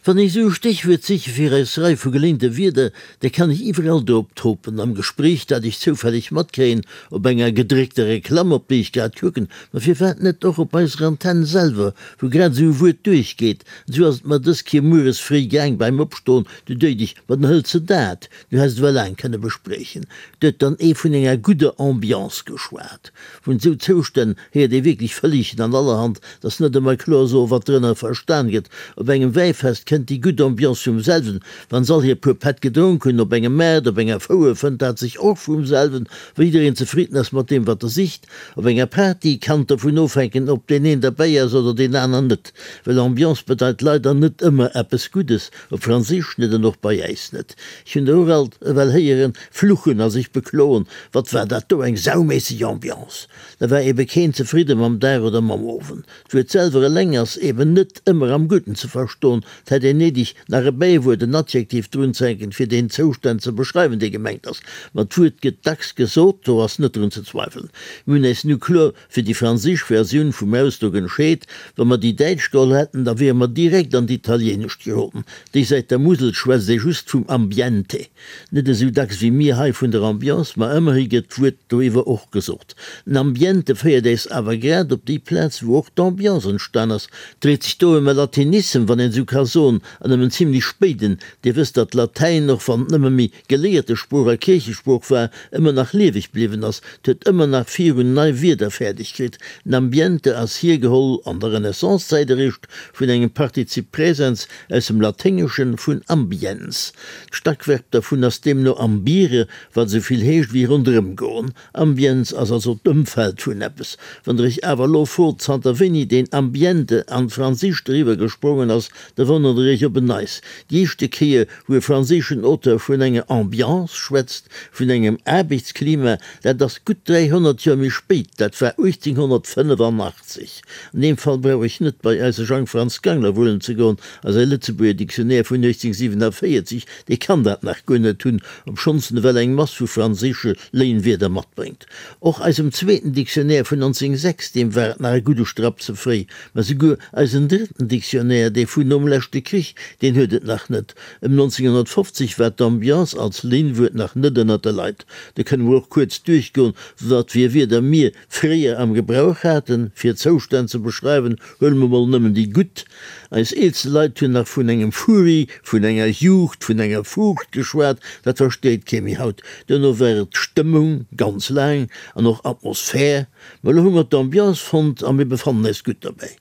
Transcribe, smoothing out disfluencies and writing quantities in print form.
Wann ech esou e Stéchwuert siche fir eis Rei vu geléinte Wierder, da kann ech iwwerall drop topen, am Gespréich, dat ech zoufälleg matkréien, op enger gedréckter Reklamm, op déi ech grad kucken, ma firwat net och op eiser Antenn selwer, wou grad esou e Wuert duerchgeet. An esou ass et mer dës Kéier mueres fréi gaang beim Opstoen, du duecht ech, ma dann hëls de dat, du häss et ewell laang kënne bespriechen. Do huet dann ee vun enger gudder Ambiance geschwat. Vun esou Zoustänn héiert ee wierklech vëlligen an allerhand, 't ass net ëmmer kloer soen, wat drënner verstan gëtt. Op engem Wäifest kënnt déi gutt Ambiance vum selwen, wann s'all hir puer Pätt gedronk hunn. Op engem Maart, op enger Fouer fënnt dat sech och vum selwen, wa jiddereen zefridden ass mat deem, wat e sicht. Op enger Party kann et dovun ofhänken, ob deen een derbäi ass oder deen aner net. Well Ambiance bedeit leider net ëmmer eppes Guddes, op Franséisch net an och bei äis net. Ech hunn der och alt ewell héieren fluchen a sech bekloen, Wat war dat do eng sauméisseg Ambiance! Da war ebe keen zefridde mam Dag oder mam Owend. D'Wuert selwer eleng ass eben net ëmmer am Gudden ze verstoen. 't hätt een néideg, nach e Bäiwuert, en Adjektiv drunzehänken, fir deen Zoustand ze beschreiwen, dee gemengt ass. Ma d'Wuert gëtt dacks gesot, do ass net drun ze zweifelen. Mir hunn äis nu kloer fir déi franséisch Versioun vum Ausdrock entscheet. Wa mer déi däitsch geholl hätten, da wiere mer direkt an d'Italieenescht geroden. Déi Säit der Musel schwätzt ee just vum Ambiente. Net esou dacks wéi mir hei vun der Ambiance, ma ëmmerhi gëtt d'Wuert doiwwer och gesot. Den Ambiente féiert äis awer grad op déi Plaz, wou och d'Ambiance entstan ass. Dréit sech do ëm e Latinissem, wann een esou ka soen, an ëm en zimlech spéiden. Dir wësst, datt Latäin, och wann et nëmme méi geléierte Sprooch a Kierchesprooch war, ëmmer nach lieweg bliwwen ass. 't huet ëmmer nach virun nei Wierder fäerdeg kritt. Den Ambiente ass hiergeholl an der Renaissance-Zäit eréischt vun engem Partizip Präsens aus dem Laténgeschen vun ambiens. D'Stackverb dervun ass deemno ambire, wat esou vill heescht wéi ronderëm goen. Ambiens ass also d'Ëmfeld vun eppes. Wann der iech awer elo frot, zanter wéini deen Ambiente an d'Franséischt eriwwer gesprongen ass, da wonnert der iech op en Neis. Déi éischte Kéier, wou e franséischen Auteur vun enger Ambiance schwätzt, vun engem Aarbechtsklima, dat ass gutt 300 Joer méi spéit, dat war 1885. An deem Fall brauch ech net bei eise Jang Franz Gangler wullen ze goen a säi Lëtzebuerger Dictionnaire vun 1847, dee kann dat nach guer net hunn, obschonns en ewell eng Mass vu franséische Léinwierder matbréngt. Och eisem zweeten Dictionnaire vun 1906, deem war et nach e gudde Strapp ze fréi. Mä souguer eisen drëtten Dictionnaire, dee vun nom leschte Krich, deen huet et nach net. Ëm 1950 war d'Ambiance als Léinwuert nach net ënnert de Leit. Do kënne mer och kuerz duerchgoen, wat fir Wierder mir fréier am Gebrauch haten, fir Zoustänn ze beschreiwen, huele mer mol nëmmen déi gutt. Eis eelste Leit hunn nach vun engem Furi, vun enger Juegd, vun enger Fuucht geschwat, dat versteet kee méi haut. Duerno war et Stëmmung, ganz laang, an och Atmosphär. Mä elo hu mer d'Ambiance fonnt a mir befannen eis gutt dobäi.